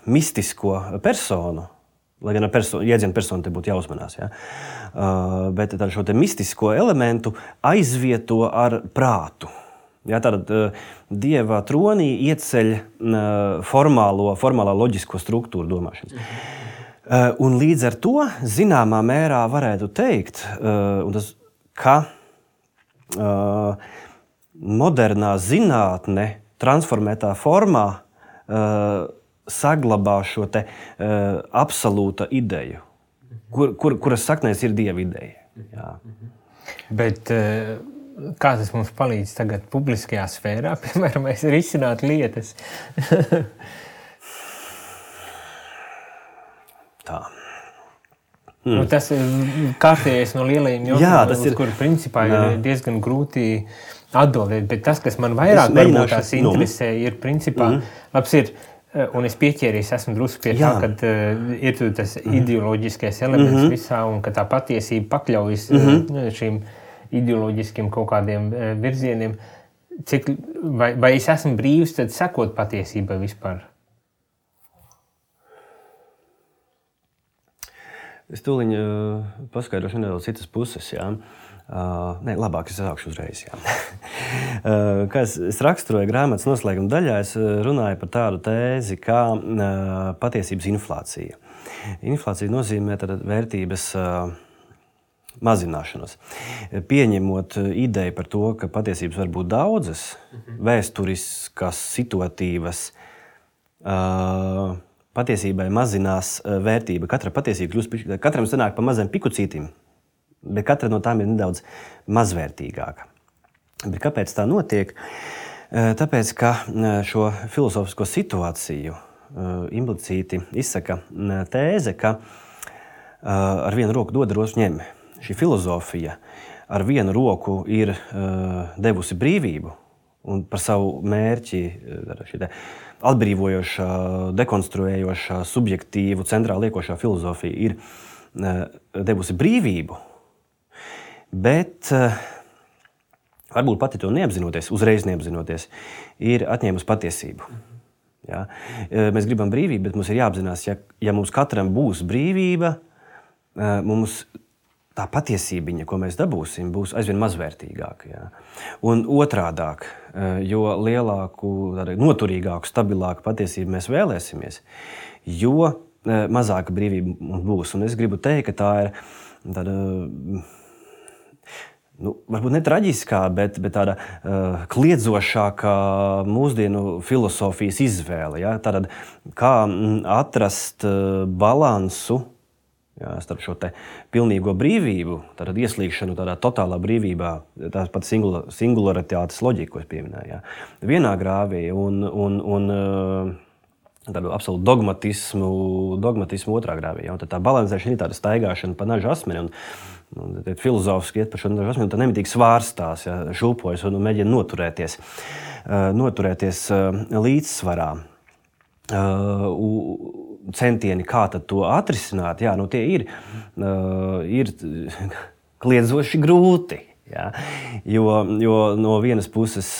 mistisko personu, lai gan jēdzienu personu te būtu jāuzmanās, ja? Bet šo te mistisko elementu aizvieto ar prātu. Ja, tātad dieva tronī ieceļ formālā loģisko struktūru domāšanas. Un līdz ar to zināmā mērā varētu teikt, ka modernā zinātne transformētā formā saglabā šo te absolūta ideju, kuras saknēs ir dieva ideja. Jā. Bet kā tas mums palīdz tagad publiskajā sfērā, piemēram, risināt lietas? Tā. Tas ir kārtējais no lielajiem jautājumiem, uz kuru principā ir diezgan grūti atbildēt. Bet tas, kas man vairāk varbūt tās interesē, ir principā, labs ir, un es pieķēries, esmu drusku pie tā, kad ir tas ideoloģiskais elements visā, un ka tā patiesība pakļaujas šīm ideoloģiskiem kaut kādiem virzieniem. Vai es esmu brīvs tad sekot patiesībai vispār? Es tūliņ paskaidrošu nedaudz citas puses. Jā. Nē, labāk es sākšu uzreiz. Kā es raksturoju grāmatas noslēguma daļā, es runāju par tādu tēzi kā patiesības inflācija. Inflācija nozīmē vērtības mazināšanos. Pieņemot ideju par to, ka patiesības var būt daudzas, vēsturiskas, situatīvas, patiesībai mazinās vērtība. Katra patiesība kļūst, katram sanāk pa maziem pikucītim, bet katra no tām ir nedaudz mazvērtīgāka. Bet kāpēc tā notiek? Tāpēc, ka šo filozofisko situāciju implicīti izsaka tēze, ka ar vienu roku dod, otru ņem. Šī filozofija ar vienu roku ir devusi brīvību un par savu mērķi atbrīvojošā, dekonstruējošā, subjektīvu, centrāli liekošā filozofija ir devusi brīvību, bet varbūt pati to neapzinoties, uzreiz neapzinoties, ir atņēmusi patiesību. Ja? Mēs gribam brīvību, bet mums ir jāapzinās, ja mums katram būs brīvība, mums tā patiesībiņa, ko mēs dabūsim, būs aizvien mazvērtīgāka. Ja? Un otrādāk, jo lielāku, noturīgāku, stabilāku patiesību mēs vēlēsimies, jo mazāka brīvība mums būs. Un es gribu teikt, ka tā ir tāda, varbūt ne traģiskā, bet tāda kliedzošākā mūsdienu filosofijas izvēle. Ja? Tātad, kā atrast balansu starp šo te pilnīgo brīvību, tātad ieslīgšanu tādā totālā brīvībā, tā pat singularitātes loģiku, ko es pieminēju. Ja? Vienā grāvī un tādu absolūtu dogmatismu otrā grāvī. Ja? Un tā balansēšana ir tāda staigāšana pa naža asmeni. Un filozofiski iet par šo naža asmeni, un tā nemitīgi svārstās, ja? Šūpojas un mēģina noturēties līdzsvarā. Centieni, kā tad to atrisināt, tie ir kliedzoši grūti. Ja? Jo no vienas puses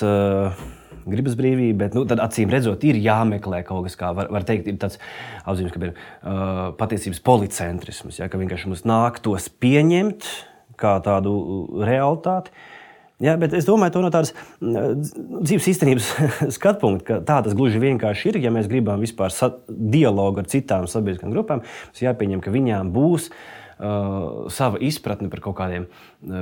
gribas brīvība, bet tad acīm redzot ir jāmeklē kaut kas, kā var teikt, ir tāds apzīmes, ka ir patiesības policentrisms, ja? Ka vienkārši mums nāktos pieņemt kā tādu realitāti. Ja, bet es domāju, to no tādas dzīves īstenības skatpunkta, ka tā tas gluži vienkārši ir, ja mēs gribam vispār dialogu ar citām sabiedriskām grupām, mums jāpieņem, ka viņām būs sava izpratne par kaut kādiem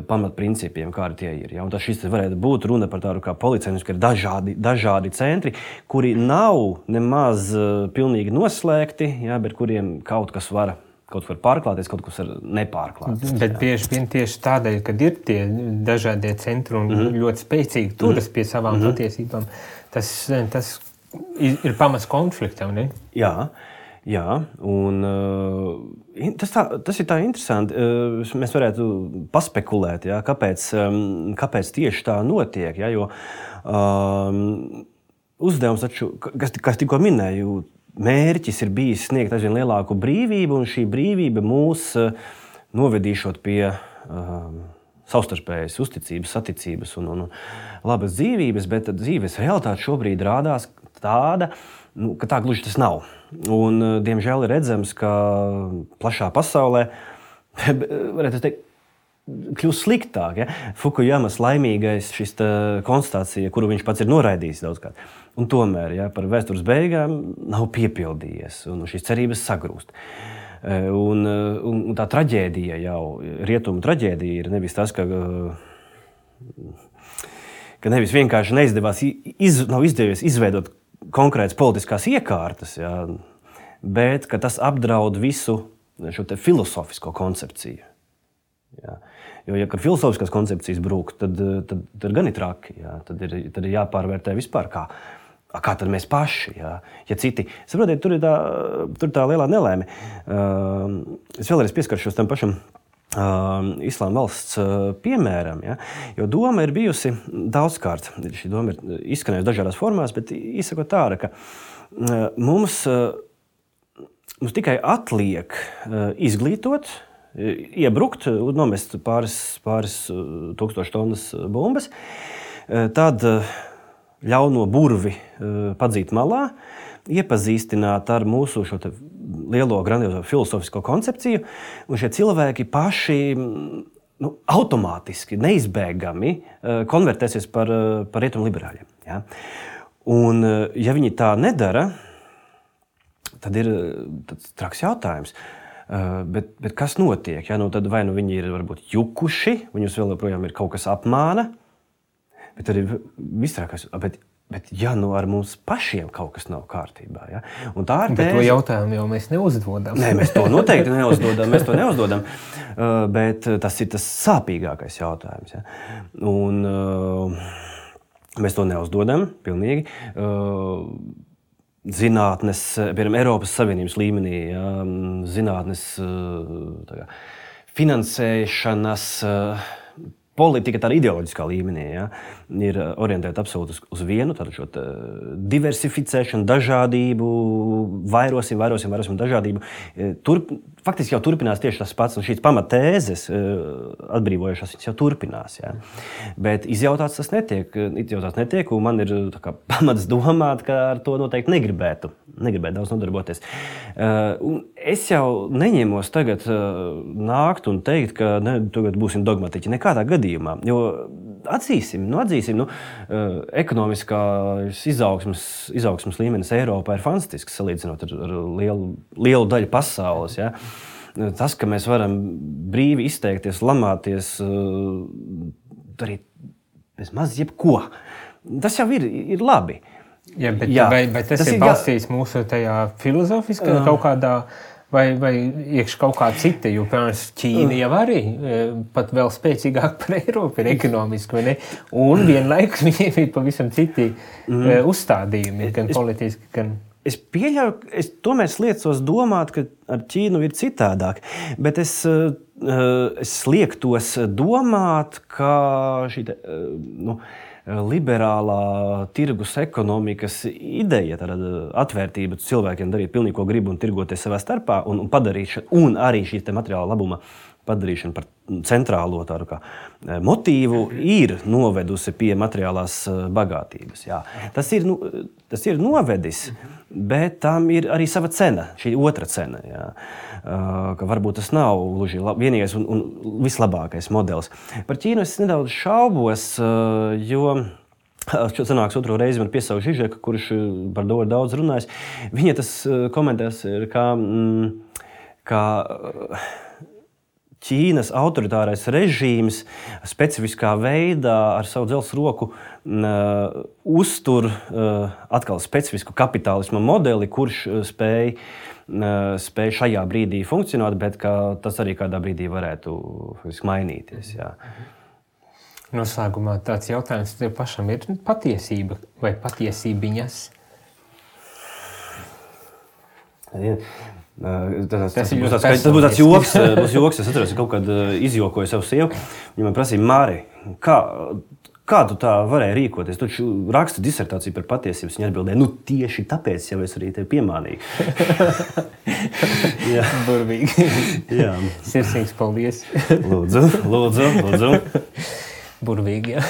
pamatprincipiem, kādi tie ir. Ja? Un tas šis varētu būt runa par tādu kā policentrismu, ka ir dažādi centri, kuri nav nemaz pilnīgi noslēgti, ja? Bet kuriem kaut var pārklāties, kaut kas var nepārklāties. Bet bieži vien tieši tādēļ, kad ir tie dažādie centri un ļoti spēcīgi turas pie savām patiesībām, tas ir pamats konfliktam, ne? Jā. Un tas ir tā interesanti. Mēs varētu paspekulēt, ja, kāpēc tieši tā notiek. Ja, jo uzdevums taču, kas tikko minēju, mērķis ir bijis sniegt aizvien lielāku brīvību, un šī brīvība mūs novedīšot pie savstarpējas uzticības, saticības un labas dzīvības, bet dzīves realitāte šobrīd rādās tāda, ka tā gluži tas nav. Un, diemžēl ir redzams, ka plašā pasaulē, varētu teikt, kļūst sliktāk. Ja? Fukuyamas laimīgais šis konstatācija, kuru viņš pats ir noraidījis daudzkārt. Un tomēr par vēstures beigām nav piepildījies, un šīs cerības sagrūst. Un tā traģēdija jau, rietumu traģēdija ir nevis tas, ka nevis vienkārši nav izdevies izveidot konkrētas politiskās iekārtas, ja, bet ka tas apdraud visu šo te filozofisko koncepciju. Ja. Jo, ja filozofiskās koncepcijas brūk, tad gan ir traki. Ja. Tad ir jāpārvērtē vispār, kā tad mēs paši. Ja, citi. Saprotiet, tur ir tā lielā nelēme. Es vēlreiz pieskaršos tam pašam Islāma valsts piemēram. Ja, jo doma ir bijusi daudzkārt. Šī doma ir izskanējusi dažādās formās, bet izsakot tāda, ka mums tikai atliek izglītot, iebrukt un nomest pāris tūkstoši tonnas bumbas, tad ļauno burvi padzīt malā, iepazīstināt ar mūsu šo lielo grandiozo filozofisko koncepciju, un šie cilvēki paši automātiski, neizbēgami konvertēsies par rietumu liberāļiem. Ja? Un, ja viņi tā nedara, tad ir tāds traks jautājums. Bet kas notiek? Ja? Tad vai viņi ir varbūt jukuši, viņus vēl joprojām ir kaut kas apmāna, bet arī vistrākais. Bet ja ar mums pašiem kaut kas nav kārtībā, ja? Un tā ir bet to jautājumu jau mēs neuzdodam. Nē, mēs to noteikti neuzdodam, bet tas ir tas sāpīgākais jautājums. Ja? Un mēs to neuzdodam pilnīgi. Zinātnes, piemēram, Eiropas Savienības līmenī, ja? Zinātnes finansēšanas politika tādā ideoloģiskā līmenī, ja, ir orientēta absolūti uz vienu, tādu šo diversificēšanu, dažādību, vairosim dažādību. Faktiski jau turpinās tieši tas pats, un šīs pamatēzes atbrīvojušās, viņas jau turpinās. Ja. Bet izjautāts tas netiek, un man ir pamats domāt, ka ar to noteikti negribētu daudz nodarboties. Un es jau neņemos tagad nākt un teikt, ka tagad būsim dogmatiķi nekādā gadījumā, jo atzīsim, ekonomiskās izaugsmes līmenis Eiropā ir fantastisks, salīdzinot ar lielu daļu pasaules. Ja? Tas, ka mēs varam brīvi izteikties, lamāties, darīt bez maz jebko, tas jau ir labi. Ja, bet tas ir balstīts mūsu tajā filozofiskā kaut kādā vai iekš kaut kā cita, jo, piemēram, Ķīna jau arī pat vēl spēcīgāk par Eiropu ir ekonomiski, vai ne? Un vienlaikus viņiem ir pavisam citi uzstādījumi, gan politiski, gan... Es pieļauju, es tomēr sliecos domāt, ka ar Ķīnu ir citādāk, bet es liektos domāt, ka šī liberālā tirgus ekonomikas ideja, tāda atvērtība cilvēkiem darīt pilnīgi, ko grib un tirgoties savā starpā un padarīšana, un arī šī materiāla labuma padarīšana par centrālo tādu kā motīvu ir novedusi pie materiālās bagātības. Jā. Tas ir novedis, bet tam ir arī sava cena, šī otra cena. Jā. Ka varbūt tas nav gluži vienīgais un vislabākais modelis. Par Ķīnu es nedaudz šaubos, jo sanāks otro reizi man piesaukt Žižeka, kurš par to daudz runājis. Viņa tas komentēs ir kā Ķīnas autoritārais režīms specifiskā veidā ar savu dzelzs roku uztur atkal specifisku kapitālisma modeli, kurš spēj šajā brīdī funkcionēt, bet ka tas arī kādā brīdī varētu mainīties. Jā. Noslēgumā tāds jautājums tev pašam ir patiesība vai patiesībiņas? Tas būs tāds joks. Es atceros, ka kaut kad izjokoju savu sievu. Viņa man prasīja, Māri, kā tu tā varēji rīkoties? Tu taču raksti disertāciju par patiesības. Viņa atbildēja, tieši tāpēc jau es arī tevi piemānīju. Burvīgi. Jā. Sirsnīgs paldies. Lūdzu. Burvīgi, jā.